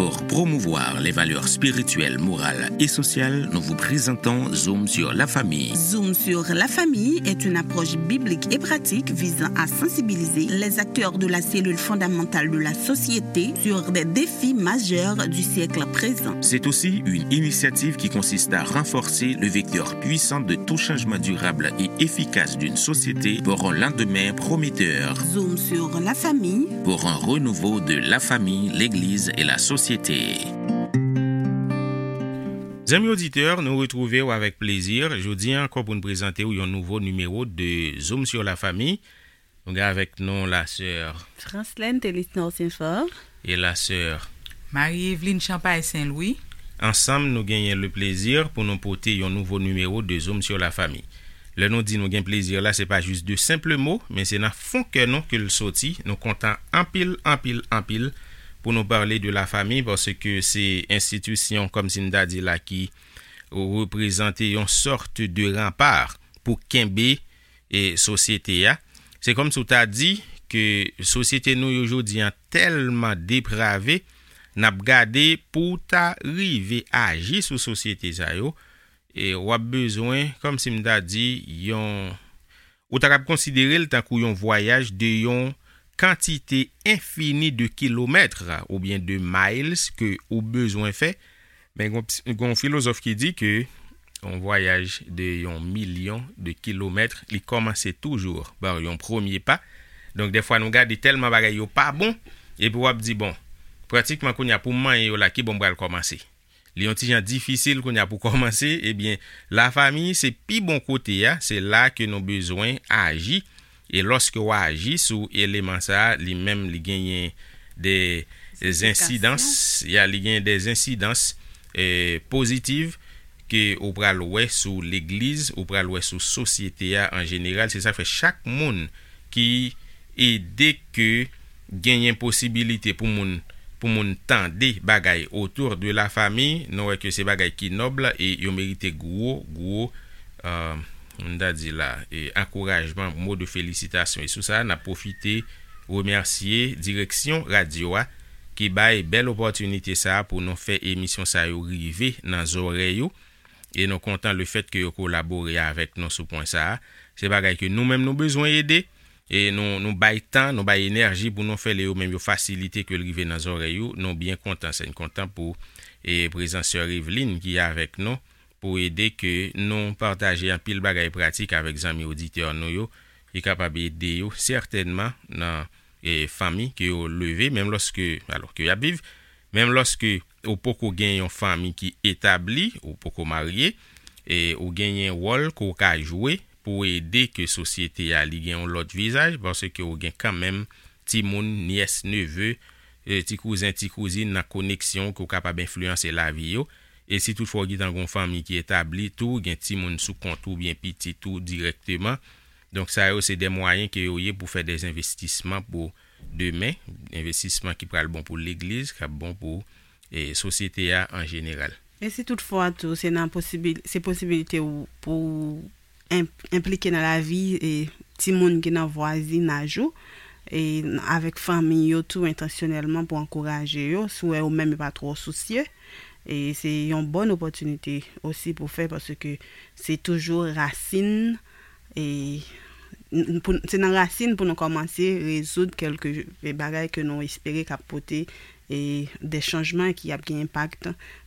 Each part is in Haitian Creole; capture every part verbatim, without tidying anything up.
Pour promouvoir les valeurs spirituelles, morales et sociales, nous vous présentons Zoom sur la famille. Zoom sur la famille est une approche biblique et pratique visant à sensibiliser les acteurs de la cellule fondamentale de la société sur des défis majeurs du siècle présent. C'est aussi une initiative qui consiste à renforcer le vecteur puissant de tout changement durable et efficace d'une société pour un lendemain prometteur. Zoom sur la famille. Pour un renouveau de la famille, l'Église et la société. Zanmi oditè, nou retwouve w avèk plezi jodi a ankò pou n prezante w yon nouvo nimewo de Zoom sur la famille. Nou gen avèk nou la sè Franslène Telisnor Saint-Fort. E la sè Marie Eveline Champagne Saint-Louis. Ansanm, nou genyen le plezi pou nou pote yon nouvo nimewo de Zoom sur la famille. Lè nou di nou gen plezi la, se pa jis de senp mo, men se nan fon kè nou ke l soti. Nou kontan anpil, anpil, anpil pou nou pale de la famille, paske se enstitisyon, kòmsi m ta di la, ki reprezante yon sòt de ranpa pou kenbe e sosyete a. Se kòmsi w ta di ke sosyete nou yo jodi a tèlman deprave, n ap gade pou w ta rive aji sou sosyete sa yo, e w ap bezwen, kòmsi m ta di, yon, ou ta kab konsidere l tankou yon vwayaj de yon kantite enfini de kilomèt oubyen de miles ke ou bezwen fè. Men gon, gon filozòf ki di ke yon vwayaj de yon milyon de kilomèt, li kòmanse toujou pa yon premye pa. Donk, dèfwa, nou gade tèlman bagay yo pa bon, epi w ap di, bon, pratikman kounye a pou m manyen yo la, ki bò m pral kòmanse? Li yon ti jan difisil kounye a pou kòmanse, ebyen, lafanmi, se pi bon kote a, se la ke nou bezwen aji. E lòske w aji sou eleman sa a, li menm, li genyen de ensidans, ya, li genyen de ensidans, eh, pozitiv ke ou pral wè sou legliz, ou pral wè sou sosyete a an jeneral. Se sa k fè chak moun ki ede ke genyen posibilite pou moun, pou moun tande bagay autour de la famille, nou wè ke se bagay ki nòb e yo merite gwo, gwo, euh, m ta di la, e ankourajman, mo de felisitasyon. E sou sa, n ap pwofite remèsye direksyon radyo a ki bay bèl opòtinite sa a pou nou fè emisyon sa yo rive nan zòrèy ou. E nou kontan le fèt ke yo kolabore avèk nou sou pwen sa a. Se bagay ke nou menm nou bezwen ede. E nou, nou bay tan, nou bay enèji pou nou fè l, e yo menm yo fasilite ke l rive nan zòrèy ou. Nou byen kontan, se n kontan pou, e, prezans sè Eveline ki avèk nou pou ede ke nou pataje anpil bagay pratik avèk zanmi oditè nou yo, ki kapab ede yo sètènman nan, e, fanmi ke yo leve, menm lòske, alò, ke y ap viv, menm lòske ou poko gen yon fanmi ki etabli, ou poko marye, e ou genyen wòl ke w ka jwe pou ede ke sosyete a li gen yon lòt vizaj, paske ou gen kanmenm timoun, nyès, neve, e, ti kouzen, ti kouzin nan koneksyon ke w kapab enfliyanse lavi yo. E si toutfwa w gentan gon fanmi ki etabli tou, gen timoun sou kont ou oubyen pitit ou dirèkteman. Donk, sa yo se de mwayen ke yo ye pou fè de envestisman pou demen, envestisman ki pral bon pou legliz, k ap bon pou, e, sosyete a an jeneral. E si toutfwa tou, se nan posibil-, se posibilite w pou enp-, enplike nan lavi, e, timoun ki nan vwazinaj ou, e, n-, avèk fanmi yo tou entansyonèlman pou ankouraje yo, si w wè yo menm yo pa twò sousye, e se yon bòn opòtinite osi pou fè, paske se toujou rasin, e, n-, pou, se nan rasin pou nou kòmanse rezoud kèlke bagay ke nou espere k ap pote, e, de chanjman ki ap gen enpak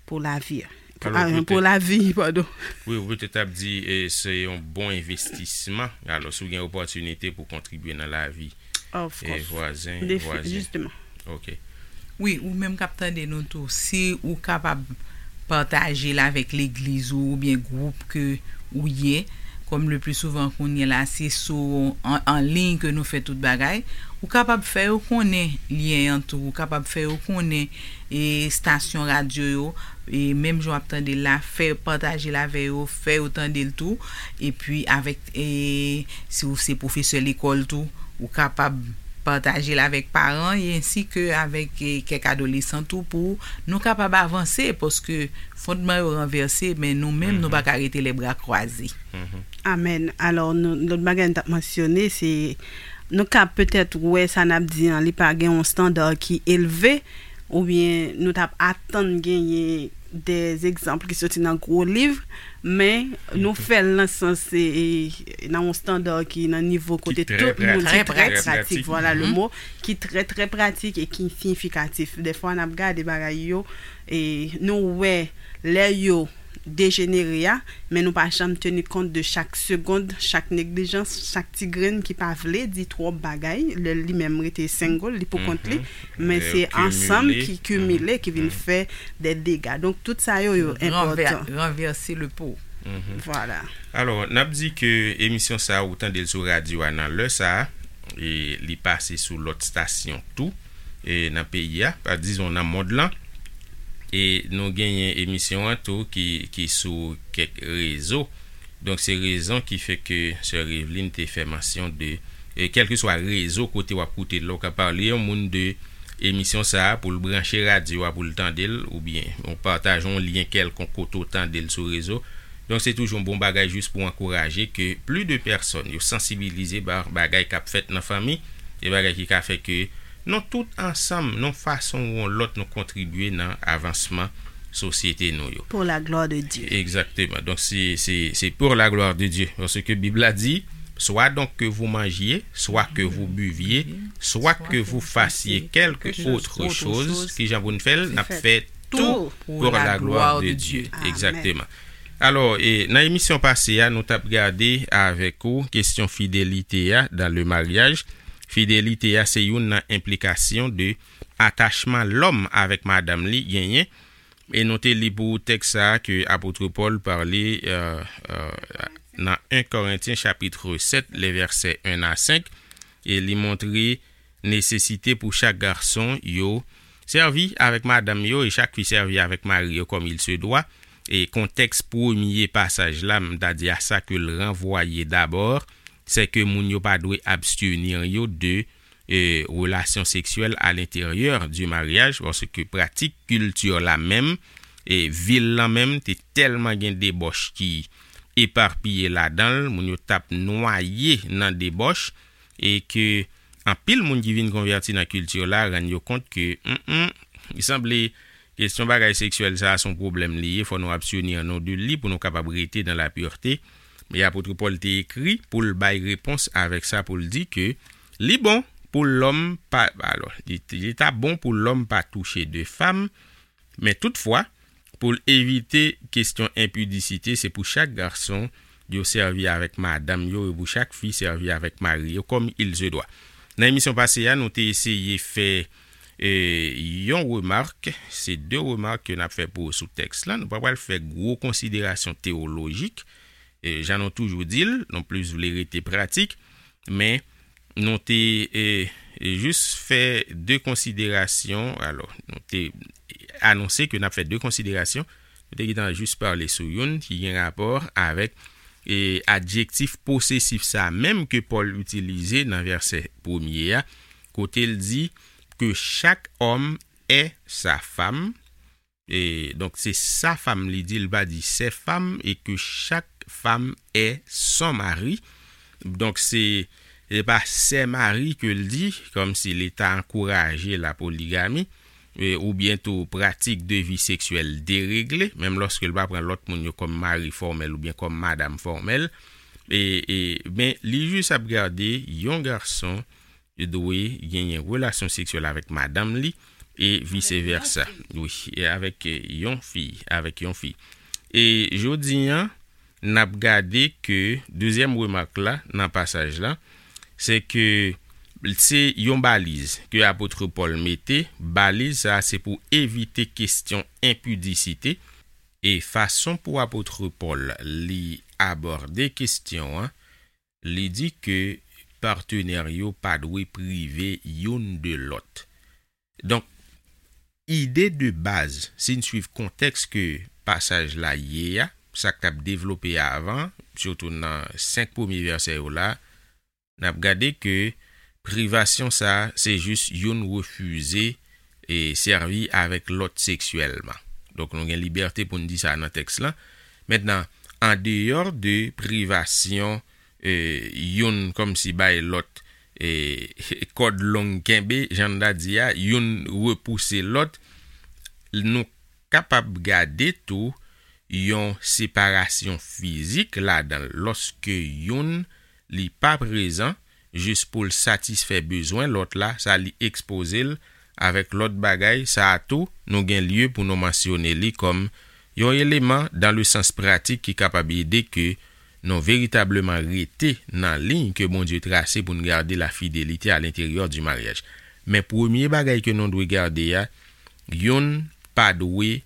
pou lavi. Pou, alò, ah, pou petèt, lavi, padon. Wi, ou petèt ap di, e, se yon bon envestisman. Alò, si w gen opòtinite pou kontribye nan lavi, of course, e, vwazen, defi-, vwazen. Jisteman. Ok. Wi, ou menm k ap tande nou tou, si ou kapab pataje l avèk legliz ou oubyen gwoup ke ou ye, kòm le pli souvan kounye la, se sou an, an liy ke nou fè tout bagay, ou kapab fè yo konnen lyen an tou, ou kapab fè yo konnen, e, estasyon radyo yo, e, menm jan w ap tande l la, fè pataje l avè yo, fè yo tande l tou, epi avèk, e, si w se pwofesè lekòl tou, ou kapab pataje l avèk paran, e ensi ke avèk, e, kèk adolesan tou, pou nou kapab avanse, paske fondman yo ranvèse, men nou menm, nou pa ka rete lèbra kwaze. Amèn. Alò, nou, lòt bagay nou t ap mansyone, se, nou ka petèt wè sa n ap di an, li pa gen yon estanda ki elve, oubyen nou t ap atann genyen de egzanp ki soti nan gwo liv, men nou fè l nan sans, e, e, nan yon estanda ki nan nivo kote tout moun ki trè pratik, vwala le mo, ki trè, trè pratik e ki siyifikatif. Defwa n ap gade bagay yo, e nou wè lè yo dejenere a, men nou pa janm teni kont de chak segond, chak neglijans, chak ti grenn ki pa vle di twòp bagay, lè li menm rete single, li pou kont li, men se ansanm ki kimile, ki vin fè de dega. Donk, tout sa yo, yo enpòtan. Ranvèse le po. Vwala. Alò, n ap di ke emisyon sa a, ou tande l sou radyo a nan lè sa a, e li pase sou lòt estasyon tou, e nan peyi a, pa, dizon nan mond lan. E nou genyen emisyon an tou ki, ki sou kèk rezo. Donk, se rezon ki fè ke sè Revlin te fè mansyon de, e kèlkeswa rezo kote w ap koute l la, ou ka pale yon moun de emisyon sa a pou l branche radyo a pou l tande l, oubyen ou pataje yon lyen kèlkonk kote w tande l sou rezo. Donk, se toujou yon bon bagay jis pou ankouraje ke plis de pèsòn yo sansibilize ba bagay k ap fèt nan fanmi, e bagay ki ka fè ke nou tout ansanm, yon fason ou yon lòt, nou kontribye nan avansman sosyete nou yo. Pour la gloire de Dieu. Egzakteman. Donk, se, se, se pour la gloire de Dieu. Paske Bib la di, soit donc que vous mangiez, soit que vous buviez, soit que vous fassiez quelque autre chose, ki jan pou n fè l, n ap fè tout pour la gloire de Dieu. Egzakteman. Alò, e, nan emisyon pase a, nou t ap gade avèk ou kesyon fidelite a dans le mariage. Fidelite a se youn nan enplikasyon de atachman lòm avèk madanm li genyen. E nou te li pou ou tèks sa a ke apot Pòl pale, e, e, nan en Korentyen chapit sèt, le vèsè en a senk, e li montre nesesite pou chak gason yo sèvi avèk madanm yo e chak fi sèvi avèk mari yo comme il se doit. E kontèks premye pasaj la, m ta di a sa ke l ranvwaye dabò, se ke moun yo pa dwe abstenir yo de, e, relasyon seksyèl à l'intérieur du mariage, paske pratik kilti la menm, e vil lan menm, te tèlman gen debòch ki epapiye ladan l, moun yo t ap nwaye nan debòch, e ke anpil moun ki vin konvèti nan kilti la rann yo kont ke, mm, mm, li sanble kesyon bagay seksyèl sa a se yon pwoblèm li ye, fò nou abstenir nou de li pou nou kapab rete dans la pureté. Men apot Pòl te ekri pou l bay repons avèk sa, pou l di ke li bon pou lòm pa, alò, li, li ta bon pou lòm pa touche de fanm, men toutfwa, pou l evite kesyon enpidisite, se pou chak gason yo sèvi avèk madanm yo, e pou chak fi sèvi avèk mari yo, comme il se doit. Nan emisyon pase a, nou te eseye fè, e, yon remak, se de remak ke n ap fè pou, sou tèks la. Nou pa pral fè gwo konsiderasyon teyolojik, e, jan nou toujou di l, nou plis vle rete pratik, men nou te, e, e, jis fè de konsiderasyon. Alò, nou te anonse ke n ap fè de konsiderasyon. Nou te gentan jis pale sou youn ki gen rapò avèk, e, adjektif posesif sa a menm ke Pòl itilize nan vèsè premye a, kote l di que chaque homme est sa femme. E, donk, se sa femme li di, li pa di ses femmes, e que chaque femme est son mari. Donk, se, se pa ses maris ke l di, kòmsi li ta ankouraje la poligami, e, oubyen tou pratik de vi seksyèl deregle, menm lòske l pa pran lòt moun yo kòm mari fòmèl oubyen kòm madanm fòmèl. E, e, men, li jis ap gade yon gason dwe genyen relasyon seksyèl avèk madanm li, e vise vèsa. Wi, e avèk, e, yon fi, avèk yon fi. E jodi a, n ap gade ke dezyèm remak la nan pasaj la, se ke se yon baliz ke apot Pòl mete. Baliz sa a se pou evite kesyon enpidisite. E fason pou apot Pòl li abòde kesyon an, li di ke patenè yo pa dwe prive youn de lòt. Donk, ide de baz, si n swiv kontèks ke pasaj la ye a, sa k t ap devlope avan, sitou nan senk premye vèsè yo la, n ap gade ke privasyon sa a, se jis youn refize e sèvi avèk lòt seksyèlman. Donk, nou gen libète pou n di sa nan tèks lan. Mentnan, andeyò de privasyon, e, youn kòmsi bay lòt, e, kòd long kenbe, jan n ta di a, youn repouse lòt. Nou kapab gade tou yon separasyon fizik ladan l, lòske youn li pa prezan, jis pou l satisfè bezwen lòt la, sa li ekspoze l avèk lòt bagay, sa a tou, nou gen lye pou nou mansyone li kòm yon eleman dan le sans pratik ki kapab ede ke nou veritableman rete nan liy ke Bondye trase pou n gade la fidelite a lenteryè di maryaj. Men premye bagay ke nou dwe gade a, youn pa dwe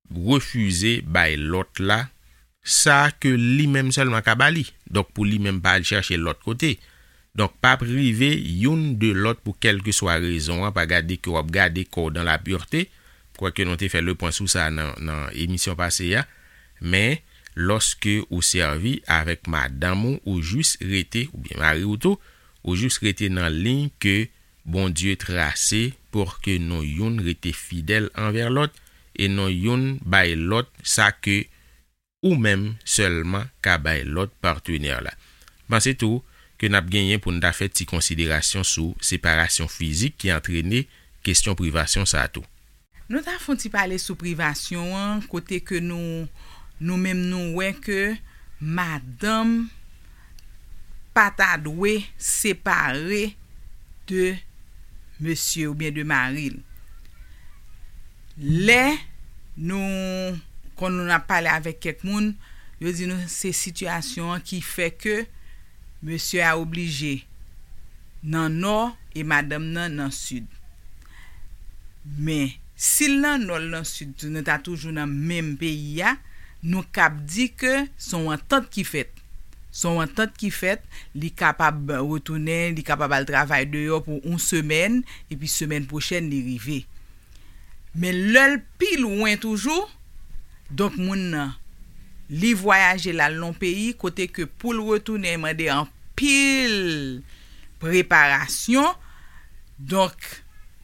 refize bay lòt la sa ke li menm sèlman ka ba li. Donk, pou li menm pa al chèche lòt kote. Donk, pa prive youn de lòt pou kèlkeswa rezon an, pa gade ke w ap gade kò w dan lapirte. Kwèke nou te fè le pwen sou sa nan, nan emisyon pase a. Men, lòske ou sèvi avèk madanm ou, ou jis rete, oubyen mari w tou, ou jis rete nan liy ke Bondye trase pou ke nou youn rete fidèl anvè lòt e nou youn bay lòt sa ke ou menm sèlman ka bay lòt patnè la. Panse tou ke n ap genyen pou n ta fè ti konsiderasyon sou separasyon fizik ki antrene kesyon privasyon sa a tou. Nou ta fè yon ti pale sou privasyon an, kote ke nou, nou menm nou wè ke madanm pa ta dwe separe de mesye oubyen de mari l. Lè nou, kon nou ap pale avèk kèk moun, yo di nou se sitiyasyon an ki fè ke mesye a oblije nan nò e madanm nan nan sid. Men, si l nan nò, l nan sid tou, nou ta toujou nan menm peyi a, nou kab di ke se yon antant ki fèt. Se yon antant ki fèt, li kapab retounen, li kapab al travay deyò pou yon semèn, epi semèn pwochèn li rive. Men lè l pi lwen toujou, donk moun nan, li vwayaje l al nan yon peyi kote ke pou l retounen mande anpil preparasyon. Donk,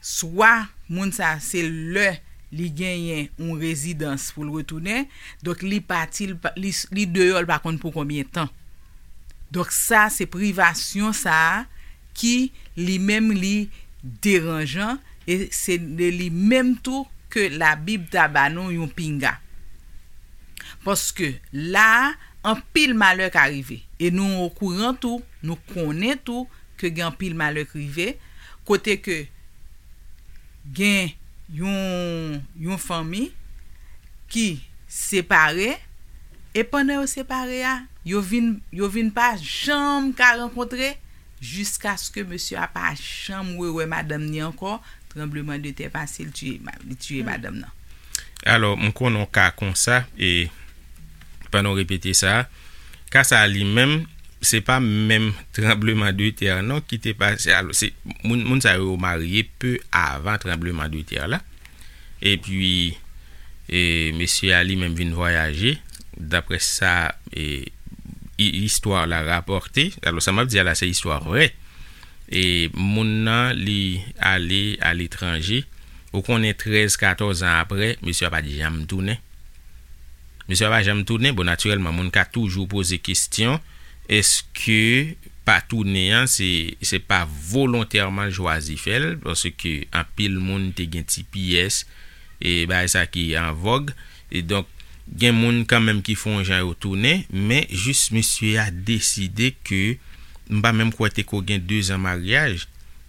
swa moun sa se lè li genyen yon rezidans pou l retounen, donk li pati, li, pa- li, li deyò, l pa konn pou konbyen tan. Donk sa se privasyon sa a ki li menm li deranjan e se de li menm tou ke Labib ta ba nou yon pinga. Paske la a, anpil malè ka rive. E nou okouran tou, nou konnen tou ke gen anpil malè k rive, kote ke gen yon, yon fanmi ki separe, e pandan yo separe a, yo vin, yo vin pa janm ka rankontre jiskaske mesye a pa janm rewè madanm ni ankò, tranbleman de tè pase, li tiye ma- li tiye madanm nan. Alò, m konnen yon ka konsa, e pandan w repete sa, ka sa li menm, se pa menm tranbleman de tè non ki te pase. Alò, se moun, moun sa yo marye pe avan tranbleman de tè la. Epi, e, mesye a li menm vin vwayaje, daprè sa, e, i- istwa la rapòte. Alò, sa m ap di a la, se istwa vrè. E moun nan, li ale aletranje. Ou konnen, trèz, katòz an apre, mesye a pa t janm tounen. Mesye a pa janm tounen. Bon, natirèlman, moun ka toujou poze kesyon, èske pa tounen an, se, se pa volontèman l chwazi fè l, paske anpil moun te gen ti pyès, e bagay sa ki an vòg. E donk, gen moun kanmenm ki fè yon jan yo tounen, men jis mesye a deside ke, m pa menm kwè te ko gen de zan maryaj,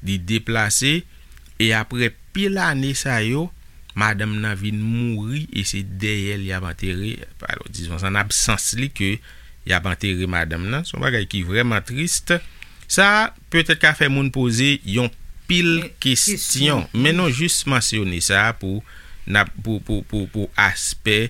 li deplase, e apre pil ane sa yo, madanm nan vin mouri e se dèyè l y ap antere, alò, dizon, an absans li ke y ap antere madanm nan. Se yon bagay ki vrèman tris. Sa petèt ka fè moun poze yon pil kesyon, men nou jis mansyone sa pou, n ap, pou, pou, pou, pou aspè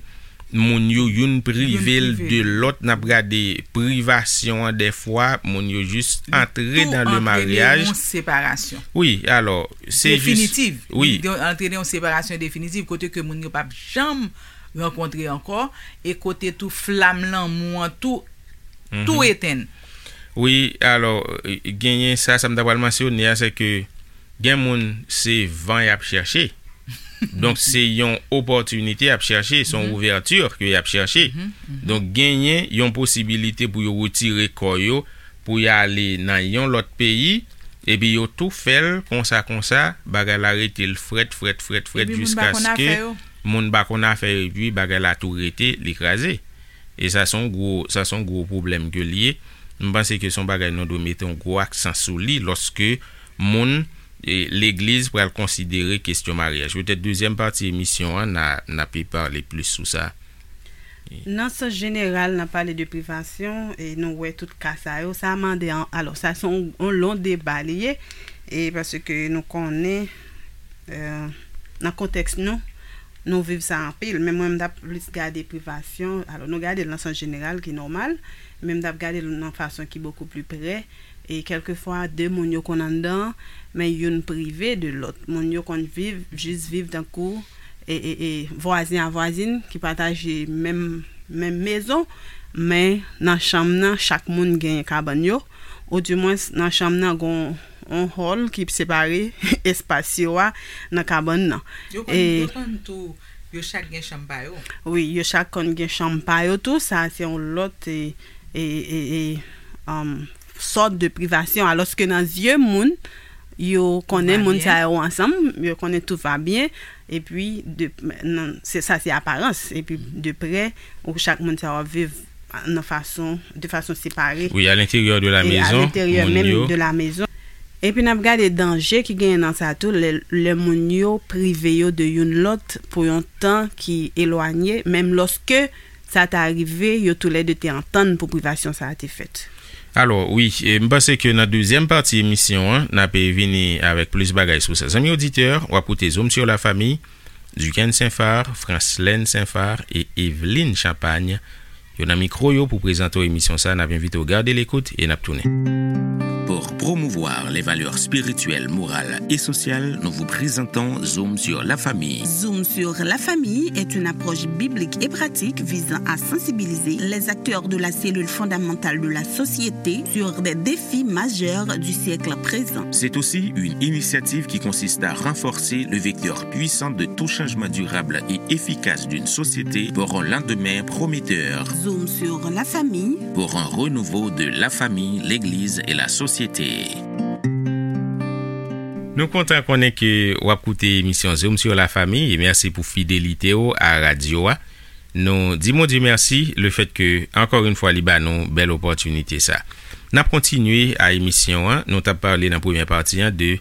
moun yo youn prive l de lòt, n ap gade privasyon an, dèfwa moun yo jis antre dan le maryaj. Yon separasyon. Wi, alò, se jis definitiv. Wi. Li antre nan yon separasyon definitiv kote ke moun yo p ap janm rankontre ankò e kote tou flam lanmou an tou, tou etenn. Wi, alò, genyen sa, sa m ta pral mansyone a, se ke gen moun se van y ap chèche. Donk, se yon opòtinite y ap chèche, se yon ouvèti ke y ap chèche. Donk, genyen yon posibilite pou yo retire kò yo, pou y ale nan yon lòt peyi, Epi yo tou fè l konsa, konsa, bagay la rete l frèt, frèt, frèt, frèt, jiskaske moun pa konn afè yo, epi bagay la tou rete, li kraze. E sa se yon gwo, sa se yon gwo pwoblèm ke l ye. M panse ke se yon bagay nou dwe mete yon gwo aksan sou li lòske moun, e, legliz pral konsidere kesyon maryaj. Petèt dezyèm pati emisyon an, n a, n a pe pale plis sou sa. Nan sans jeneral, n ap pale de privasyon, e nou wè tout ka sa yo. Sa mande an, alò, sa se yon, yon lon deba li ye, e paske nou konnen, e, nan kontèks nou, nou viv sa anpil. Men mwen, m t ap plis gade privasyon. Alò, nou gade l nan sans jeneral, ki nòmal, men m t ap gade l nan fason ki bokou pli prè. E kèlkefwa, de moun yo konn anndan, men youn prive de lòt. Moun yo konn viv, jis viv tankou, e, e, e, vwazen a vwazin ki pataje menm, menm mezon, men nan chanm nan, chak moun gen kabann yo, oudimwens nan chanm nan, gon yon hòl ki separe espas yo a nan kabann nan. Yo konn, e, yo konn tou, yo chak gen chanm pa yo. Wi, yo chak konn gen chanm pa yo tou. Sa se yon lòt, e, e, e, e, um, sòt de privasyon. Alòske nan zye moun, yo konnen moun sa yo ansanm, yo konnen tout va byen, epi de, nan, se, sa se aparans, epi de prè, ou chak moun sa yo ap viv nan fason, de fason separe. Wi, à l'intérieur de la maison, moun yo. Epi n ap gade danje ki genyen nan sa tou, lè, lè moun yo prive yo de youn lòt pou yon tan ki elwanye, menm lòske sa ta rive, yo toulède te antann pou privasyon sa a te fèt. Alò, wi, e, m panse ke nan dezyèm pati emisyon an, n ape vini avèk plis bagay sou sa. Zanmi oditè, w ap koute Zoom sur la famille, Duquesne Saint-Phar, Francelène Saint-Phar e Evelyne Champagne. Yo nan mikwo yo pou prezante w emisyon sa, n ap envite w gade lekout e n ap tounen. Pour promouvoir les valeurs spirituelles, morales et sociales, nous vous présentons Zoom sur la famille. Zoom sur la famille est une approche biblique et pratique visant à sensibiliser les acteurs de la cellule fondamentale de la société sur des défis majeurs du siècle présent. C'est aussi une initiative qui consiste à renforcer le vecteur puissant de tout changement durable et efficace d'une société pour un lendemain prometteur. Zoom sur la famille. Pour un renouveau de la famille, l'Église et la société. Nou kontan konnen ke w ap koute emisyon Zoom sur la famille e mèsi pou fidelite w a radyo a. Nou di Bondye mèsi lefèt ke, ankò yon fwa, li ba nou bèl opòtinite sa. N ap kontinye a emisyon an. Nou t ap pale nan premyè pati an de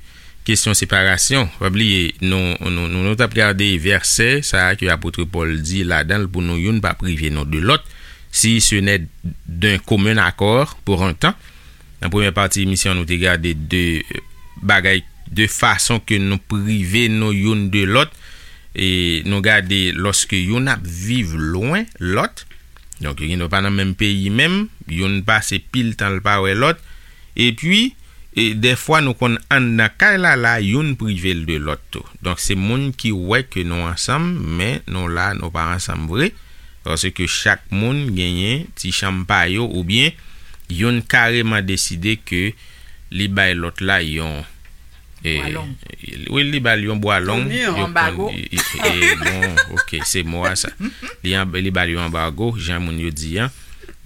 kesyon separasyon. Pa bliye, nou, nou, nou, nou t ap gade vèsè sa a ke apot Pòl di ladan l pou nou youn pa prive nou de lòt, si ce n'est d'un commun accord pour un temps. Nan premyè pati emisyon, nou te gade de bagay, de fason ke nou prive nou youn de lòt. E nou gade lòske youn ap viv lwen lòt. Donk, yo gen dwa pa nan menm peyi menm, youn pase pil tan l pa wè lòt. Epi, e, dèfwa nou konn anndan kay la, la, youn prive l de lòt tou. Donk, se moun ki wè ke nou ansanm, men nou la, nou pa ansanm vre. Paske chak moun genyen ti chanm pa yo, oubyen youn kareman deside ke li bay lòt la yon, e, bwa long. Wi, li ba l yon bwa long. Yon anbago. Bon, ok, se mo a sa. Li, li ba l yon anbago, jan moun yo di an.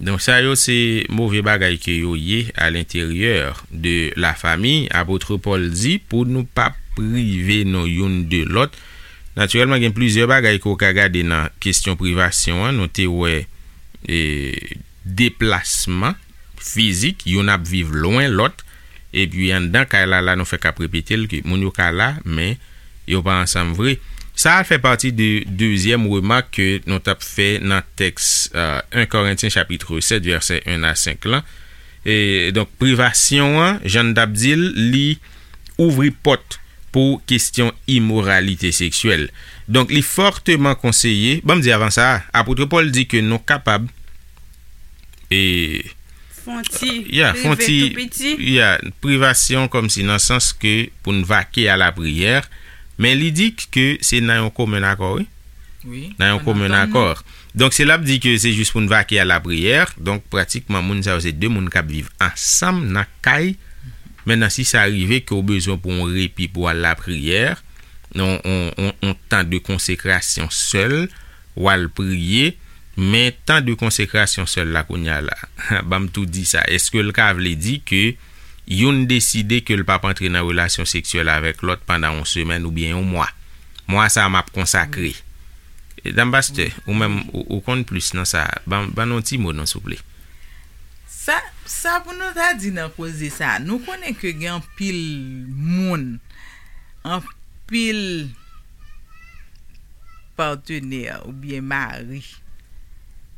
Donk, sa yo se move bagay ke yo ye à l'intérieur de la famille. Apot Pòl di pou nou pa prive nou youn de lòt. Natirèlman, gen plizyè bagay ke w ka gade nan kesyon privasyon an. Nou te wè, e, deplasman fizik, youn ap viv lwen lòt, epi anndan kay la, la nou fèk ap repete l ke moun yo ka la, men yo pa ansanm vre. Sa a fè pati de dezyèm remak ke nou t ap fè nan tèks, e, en Korentyen chapit sèt, vèsè en a senk lan. E, donk, privasyon an, jan n t ap di l, li ouvri pòt pou kesyon imoralite seksyèl. Donk, li fòteman konseye, ban m di avan sa, apot Pòl di ke nou kapab, e, fè yon ti, ya, fè yon ti, tou piti, ya, privasyon kòmsi nan sans ke pou n vake a lapriyè, men li di ke se nan yon komen akò, wi. Wi, nan yon komen akò. Donk, se l ap di ke se jis pou n vake a lapriyè. Donk, pratikman, moun sa yo se de moun k ap viv ansanm nan kay. Mentnan, si sa rive ke w bezwen pou yon repi pou w al lapriyè, yon, yon, yon, yon tan de konsekrasyon sèl, w al priye, men tan de konsekrasyon sèl la kounye a la, ban m tou di sa, èske l ka vle di ke youn deside ke l p ap antre nan relasyon seksyèl avèk lòt pandan yon semèn oubyen yon mwa. Mwa sa a m ap konsakre. E, Dam Pastè, ou menm, ou, ou konn plis nan sa. Ban, ban nou yon ti mo, non, souple. Sa, sa pou nou ta di nan koze sa, nou konnen ke gen anpil moun, anpil patenè oubyen mari,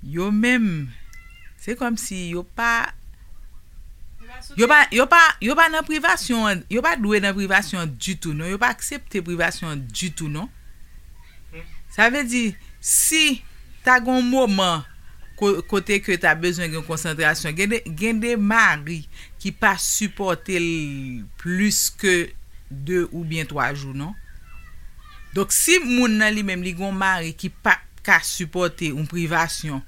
yo menm, se kòmsi yo pa, yo pa, yo pa, yo pa nan privasyon an, yo pa dwe nan privasyon an ditou, non, yo pa aksepte privasyon an ditou, non. Sa vle di, si ta gen yon moman ko-, kote ke ta bezwen gen konsantrasyon, gen de, gen de mari ki pa sipòte l plis ke de oubyen twa jou, non. Donk, si moun nan li menm, li gen yon mari ki pa ka sipòte yon privasyon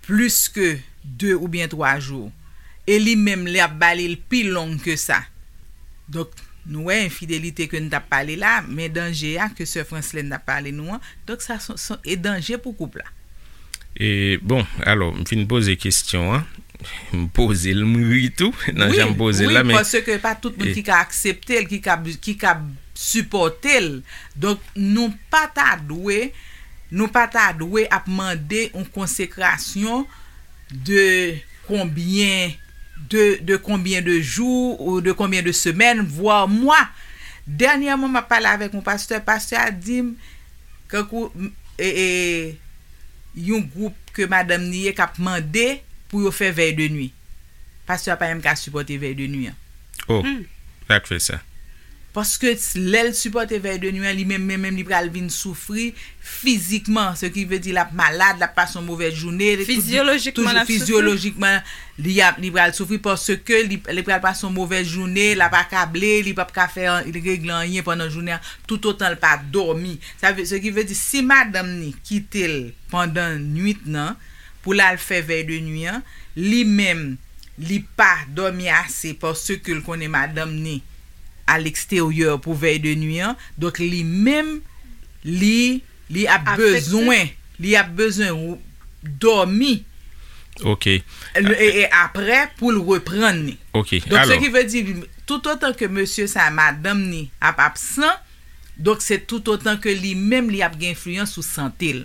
plis ke de oubyen twa jou, e li menm, li ap ba li l pi long ke sa. Donk, nou wè enfidelite ke n t ap pale la, men danje a ke sè Franslèn t ap pale nou an, donk sa son, son, e danje pou koup la. E, bon, alò, m fin poze kesyon an. M poze l, m ri tou nan jan m poze l la, men. Wi, paske pa tout moun ki ka aksepte l, ki ka, ki ka sipòte l. Donk, nou pa ta dwe, nou pa ta dwe ap mande yon konsekrasyon de konbyen de, de konbyen de jou ou de konbyen de semèn, vwa mwa. Dènyèman, m ap pale avèk yon pastè, pastè a di m, kankou, m, e, e, yon gwoup ke madanm ni ye k ap mande pou yo fè vèy de nwi. Pastè a pa menm ka sipòte vèy de nwi an. Oh, sa k fè sa? Paske lè l sipòte vèy de nwi an, li menm, menm, menm, li pral vin soufri fizikman. Se ki vle di l ap malad, l ap pase yon movèz jounen. Fizyolojikman, l ap soufri. Fizyolojikman, li ap, li pral soufri paske li, li pral pase yon movèz jounen, l ap akable, li p ap ka fè an, regle anyen pandan jounen an, toutotan l pa dòmi. Sa vle, se ki vle di, si madanm ni kite l pandan nwit nan, pou l al fè vèy de nwi an, li menm, li pa dòmi ase paske l konnen madanm ni a leksteryè pou vèy de nwi an. Donk, li menm, li, li ap bezwen, li ap bezwen dòmi. Ok. E, e apre, pou l reprann li. Ok. Donk, se ki vle di, toutotan ke mesye sa, madanm ni ap absan, donk, se toutotan ke li menm, li ap gen enfliyans sou sante l.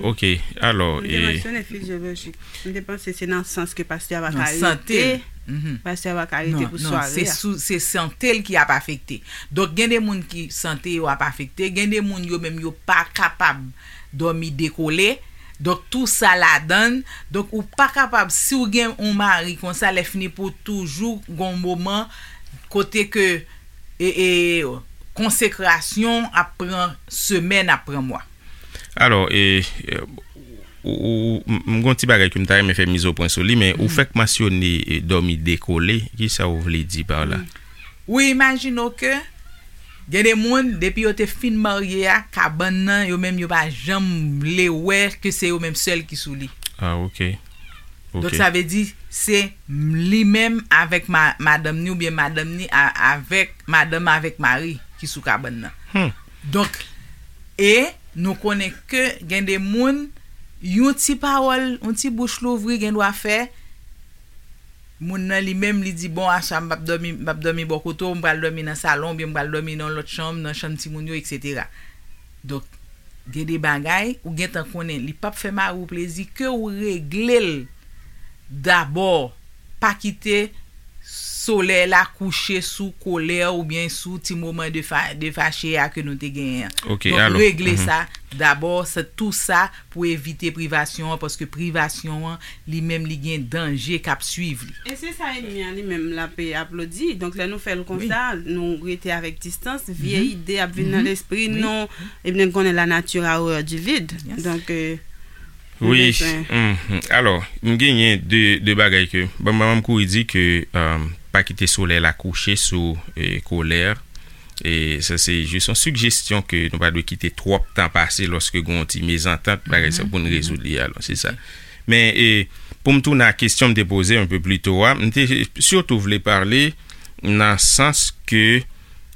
Ok, alò. Ou te mansyone fizyolojik. M te panse se nan sans ke pastè a pa ka rete. Pastè a pa ka rete pou sware a. Se sante l ki ap afekte. Donk, gen de moun ki sante yo ap afekte, gen de moun yo menm yo pa kapab dòmi dekole. Donk, tou sa ladan l. Donk, ou pa kapab, si w gen yon mari konsa, lè fini pou toujou gen yon moman kote ke e, e, konsekrasyon ap pran semèn, ap pran mwa. Alò, e, e, ou, ou, m, m gon ti bagay ke m ta renmen fè mizopwen sou li, men ou fèk mansyone, e, dòmi dekole. Kisa ou vle di pa la? Ou imajine w ke gen de moun, depi yo te fin marye a, kabann nan, yo menm yo pa janm vle wè ke se yo menm sèl ki sou li. Ah, ok. Donk, sa vle di, se li menm avèk ma, madanm ni oubyen madanm ni a, avèk madanm avèk mari ki sou kabann nan. Donk, e nou konnen ke gen de moun, yon ti pawòl, yon ti bouch louvri gendwa fè moun nan li menm li di, bon, aswè a m p ap dòmi, m p ap dòmi bò kote w, m pral dòmi nan salon oubyen m pral dòmi nan yon lòt chanm, nan chanm timoun yo, eksetera. Donk, gen de bagay ou gentan konnen li p ap fè mari w plezi, ke w regle l dabò. Pa kite solèy la kouche sou kolè oubyen sou ti moman de fa, de fache a ke nou te genyen an. Donk, regle sa dabò, se tou sa pou evite privasyon an, paske privasyon an, li menm, li gen danje k ap swiv li. E se sa ènmi an li menm l ap aplodi. Donk, lè nou fè l konsa, nou rete avèk distans, vye ide ap vin nan lespri nou, ebyen, konnen la nature a horreur du vide. Donk, Wi. Alò, m genyen de, de bagay ke, ban m, ban m kouri di ke, pa kite solèy la kouche sou, e, kolè. E sa se jis yon sigestyon ke nou pa dwe kite twòp tan pase lòske gen yon ti mezantant, bagay sa pou n rezoud li, alò, se sa. Men, e, pou m tounen a kesyon m te poze yon pe pli to a, m te sitou vle pale nan sans ke,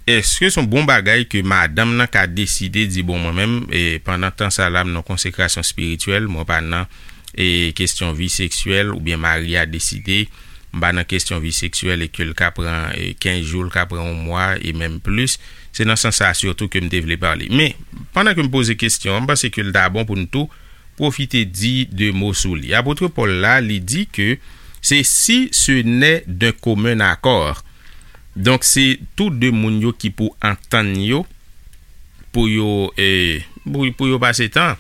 èske se yon bon bagay ke madanm nan ka deside di, bon, mwen menm, e, pandan tan sa la, m nan konsekrasyon espirityèl, mwen pa nan, e, kesyon vi seksyèl, oubyen mari a deside, m pa nan kesyon vi seksyèl e ke l ka pran e, kenz jou, l ka pran yon mwa e menm plis. Se nan sans sa sitou ke m te vle pale. Men, pandan ke m poze kesyon an, m panse ke l ta bon pou n tou pwofite di de mo sou li. Apot Pòl la, li di ke se si ce n'est d'un commun accord. Donk, se tou de moun yo ki pou antann yo, pou yo, e, pou, pou yo pase tan.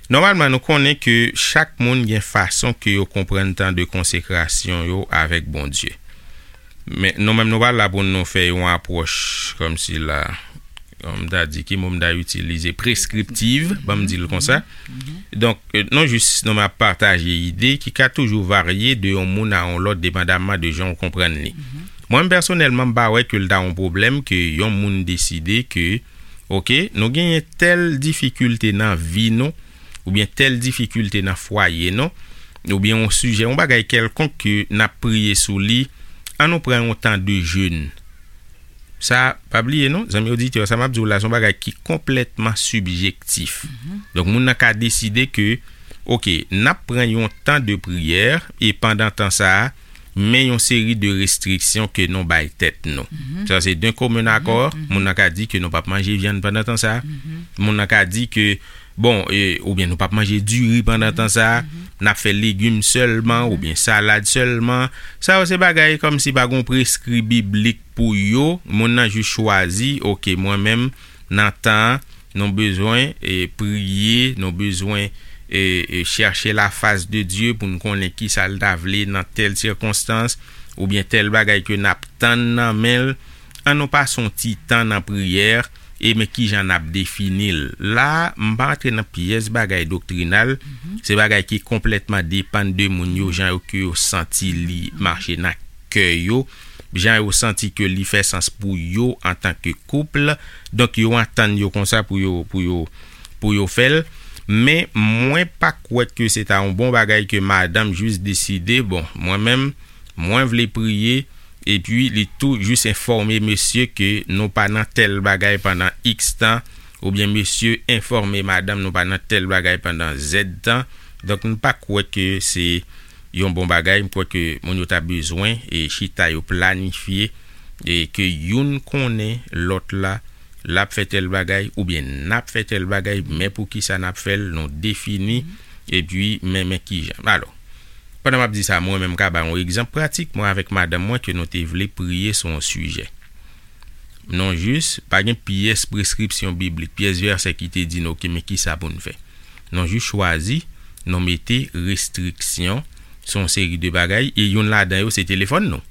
Nòmalman, nou konnen ke chak moun gen fason ke yo konprann tan de konsekrasyon yo avèk Bondye. Men nou menm nou pa la pou nou fè yon apwòch kòmsi la, m ta di, ki mo m ta itilize, preskriptiv, ban m di l konsa. Donk, e, nou jis, nou m ap pataje ide ki ka toujou varye de yon moun a yon lòt, depandamman de jan w konprann li. Mwen menm pèsonèlman, m pa wè ke l ta yon pwoblèm ke yon moun deside ke, oke, nou genyen tèl difikilte nan vi nou, oubyen tèl difikilte nan fwaye nou, oubyen yon sijè, yon bagay kèlkonk ke n ap priye sou li, ann nou pran yon tan de jèn. Sa, pa bliye non, zanmi oditè, sa m ap di w la, se yon bagay ki konplètman sibjektif. Donk, moun nan ka deside ke, oke, n ap pran yon tan de priyè, e pandan tan sa a, men yon seri de restriksyon ke nou bay tèt nou. Sa, se d'un commun accord, moun nan ka di ke nou p ap manje vyann pandan tan sa a. Moun nan ka di ke, bon, e, oubyen nou p ap manje diri pandan tan sa a, n ap fè legim sèlman, oubyen salad sèlman. Sa yo se bagay kòmsi pa gon preskri biblik pou yo, moun nan jis chwazi, oke, mwen menm, nan tan an, nou bezwen, e, priye, nou bezwen, e, e, chèche la fas de Dye pou n konnen ki sa l ta vle nan tèl sikonstans, oubyen tèl bagay ke n ap tann nan men l. Ann nou pase yon ti tan nan priyè, e men ki jan n ap defini l. La, m pa antre nan pyès bagay doktrinal, se bagay ki konplètman depann de moun yo, jan yo ke yo santi li mache nan kè yo, jan yo santi ke li fè sans pou yo antanke koup. Donk, yo antann yo konsa pou yo, pou yo, pou yo fè l. Men, mwen pa kwè ke se ta yon bon bagay ke madanm jis deside, bon, mwen menm, mwen vle priye, epi li tou jis enfòme mesye ke nou pa nan tèl bagay pandan iks tan, oubyen mesye enfòme madanm nou pa nan tèl bagay pandan zèd tan. Donk, m pa kwè ke se yon bon bagay. M kwè ke moun yo ta bezwen e chita yo planifye e ke youn konnen lòt la, l ap fè tèl bagay oubyen n ap fè tèl bagay, men poukisa n ap fè l, nou defini, epi men, men kijan. Alò, pandan m ap di sa, mwen menm m ka ba yon egzanp pratik, mwen avèk madanm mwen ke nou te vle priye sou yon sijè. Non jis, pa gen pyès preskripsyon biblik, pyès vèsè ki te di nou, oke, men kisa pou n fè. Non jis chwazi, nou mete restriksyon sou yon seri de bagay, e youn ladan yo se telefòn nou.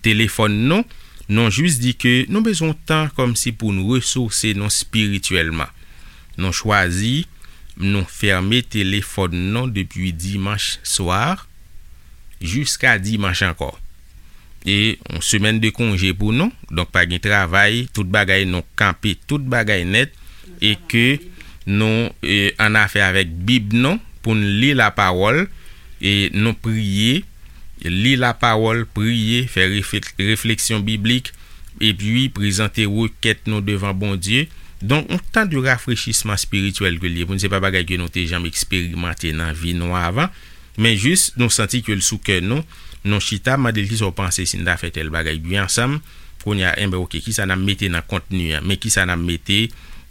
Telefòn nou, nou jis di ke nou bezwen tan kòmsi pou n resouse nou espirityèlman. Nou chwazi, nou fèmen telefòn nou depi dimanch swa jiska dimanch ankò. E yon semèn de konje pou nou, donk pa gen travay, tout bagay nou kanpe, tout bagay nèt, e ke nou e, an afè avèk Bib nou, pou n li lapawòl, e nou priye, li lapawòl, priye, fè refle- refleksyon biblik, epi prezante rekèt nou devan Bondye. Donk, yon tan de rafrechisman espirityèl ke l ye pou n, se pa bagay ke nou te janm eksperimante nan vi nou avan, men jis nou santi ke l sou kè nou, nou chita, mande l kisa w panse si n ta fè tèl bagay, byen ansanm, kounye a, enben, oke, kisa n ap mete nan kontni an, men kisa n ap mete,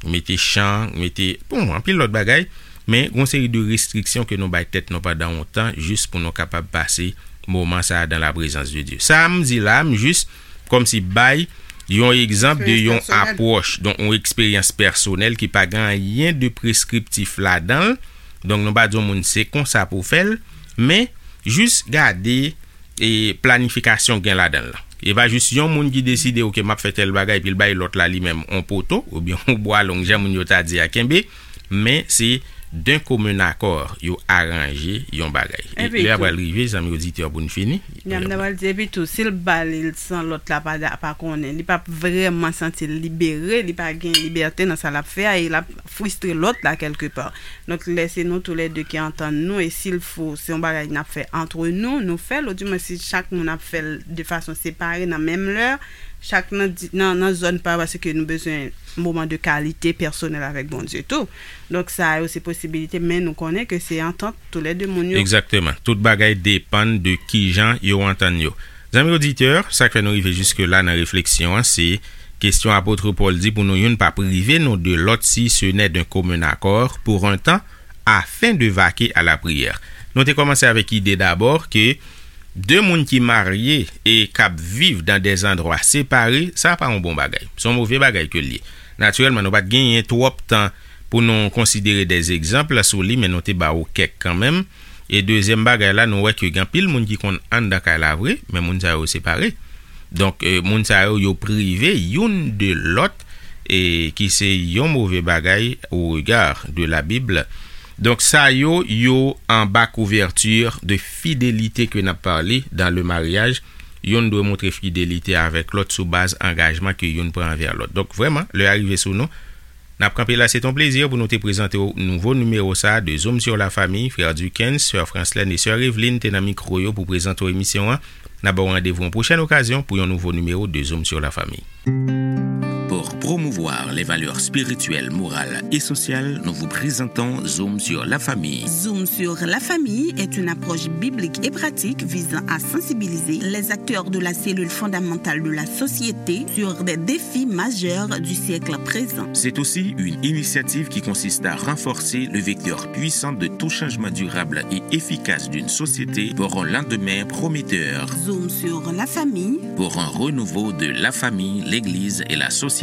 mete chan, mete, bon, anpil lòt bagay, men gon seri de restriksyon ke nou bay tèt nou pandan yon tan, jis pou nou kapab pase moman sa a dan la prezans de Dye. Sa a m di la, m jis kòmsi bay yon egzanp de yon apwòch, donk yon eksperyans pèsonèl ki pa gen anyen de preskriptif ladan l. Donk nou pa di yon moun se konsa pou w fè l, men jis gade e planifikasyon gen ladan l. E pa jis yon moun ki deside, oke, m ap fè tèl bagay, epi l bay lòt la li menm on poto, oubyen on bwa long, jan moun yo ta di a kenbe, men se d'un commun accord yo aranje yon bagay. E lè a pral rive, zanmi oditè, pou n fini. Nan m ta pral di, epi tou, si l ba li l san lòt la pa, pa konnen, li p ap vrèman santi l libere, li pa gen libète nan sa l ap fè a, e l ap fristre lòt la kèlkepa. Donk, lè se nou toulède ki antann nou, e si l fo, se yon bagay n ap fè antre nou, nou fè l, odimwen si chak moun ap fè l de fason separe nan menm lè, Chak nan, di- nan, nan zòn pa, paske nou bezwen moman de kalite pèsonèl avèk Bondye tou. Donk, sa yo se posibilite, men nou konnen ke se antant tou lè de moun yo. Egzakteman. Tout bagay depann de kijan yo antann yo. Zanmi oditè, sa k fè nou rive jiske la nan refleksyon an, se kesyon apot Pòl di pou nou youn pa prive nou de lòt si ce n'est d'un commun accord pour un temps, afin de vaquer à la prière. Nou te kòmanse avèk ide dabò ke de moun ki marye e k ap viv dan de zandwa separe, sa pa yon bon bagay. Se yon move bagay ke l ye. Natirèlman, nou pa t genyen twòp tan pou nou konsidere de egzanp sou li, men nou te ba ou kèk kanmenm. E dezyèm bagay la, nou wè ke gen anpil moun ki konn anndan kay la vre, men moun sa yo separe. Donk, eh, moun sa yo, yo prive youn de lòt, e ki se yon move bagay au regard de la Bible. Donk, sa yo, yo anba couverture de fidélité ke n ap pale dans le mariage. Youn dwe montre fidelite avèk lòt sou baz angajman ke youn pran anvè lòt. Donk, vrèman, lè a rive sou nou, n ap kanpe la, se t on plezi pou nou te prezante w nouvo nimewo sa a de Zoom sur la famille, frè Duckens, sè Franslèn e sè Eveline te nan mikwo yo pou prezante w emisyon an. N ap ba w randevou yon pwochèn okazyon pou yon nouvo nimewo de Zoom sur la famille. Pour promouvoir les valeurs spirituelles, morales et sociales, nous vous présentons Zoom sur la famille. Zoom sur la famille est une approche biblique et pratique visant à sensibiliser les acteurs de la cellule fondamentale de la société sur des défis majeurs du siècle présent. C'est aussi une initiative qui consiste à renforcer le vecteur puissant de tout changement durable et efficace d'une société pour un lendemain prometteur. Zoom sur la famille. Pour un renouveau de la famille, l'Église et la société.